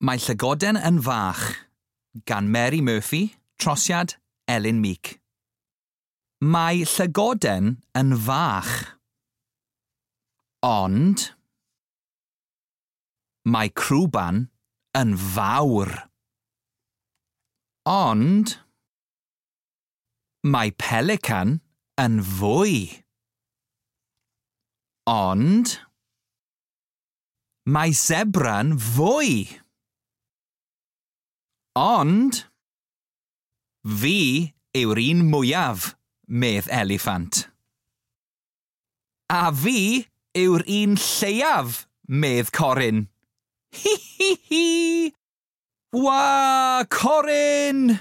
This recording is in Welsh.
Mae Llygoden yn Fach gan Mary Murphy, trosiad Elin Meek. Mae llygoden yn fach. Ond mae crwban yn fawr. Ond mae pelican yn fwy. Ond mae zebra'n fwy. Ond fi yw'r un mwyaf, medd eliffant. A fi yw'r un lleiaf, medd Corin. Hi hi hi! Wa, Corin!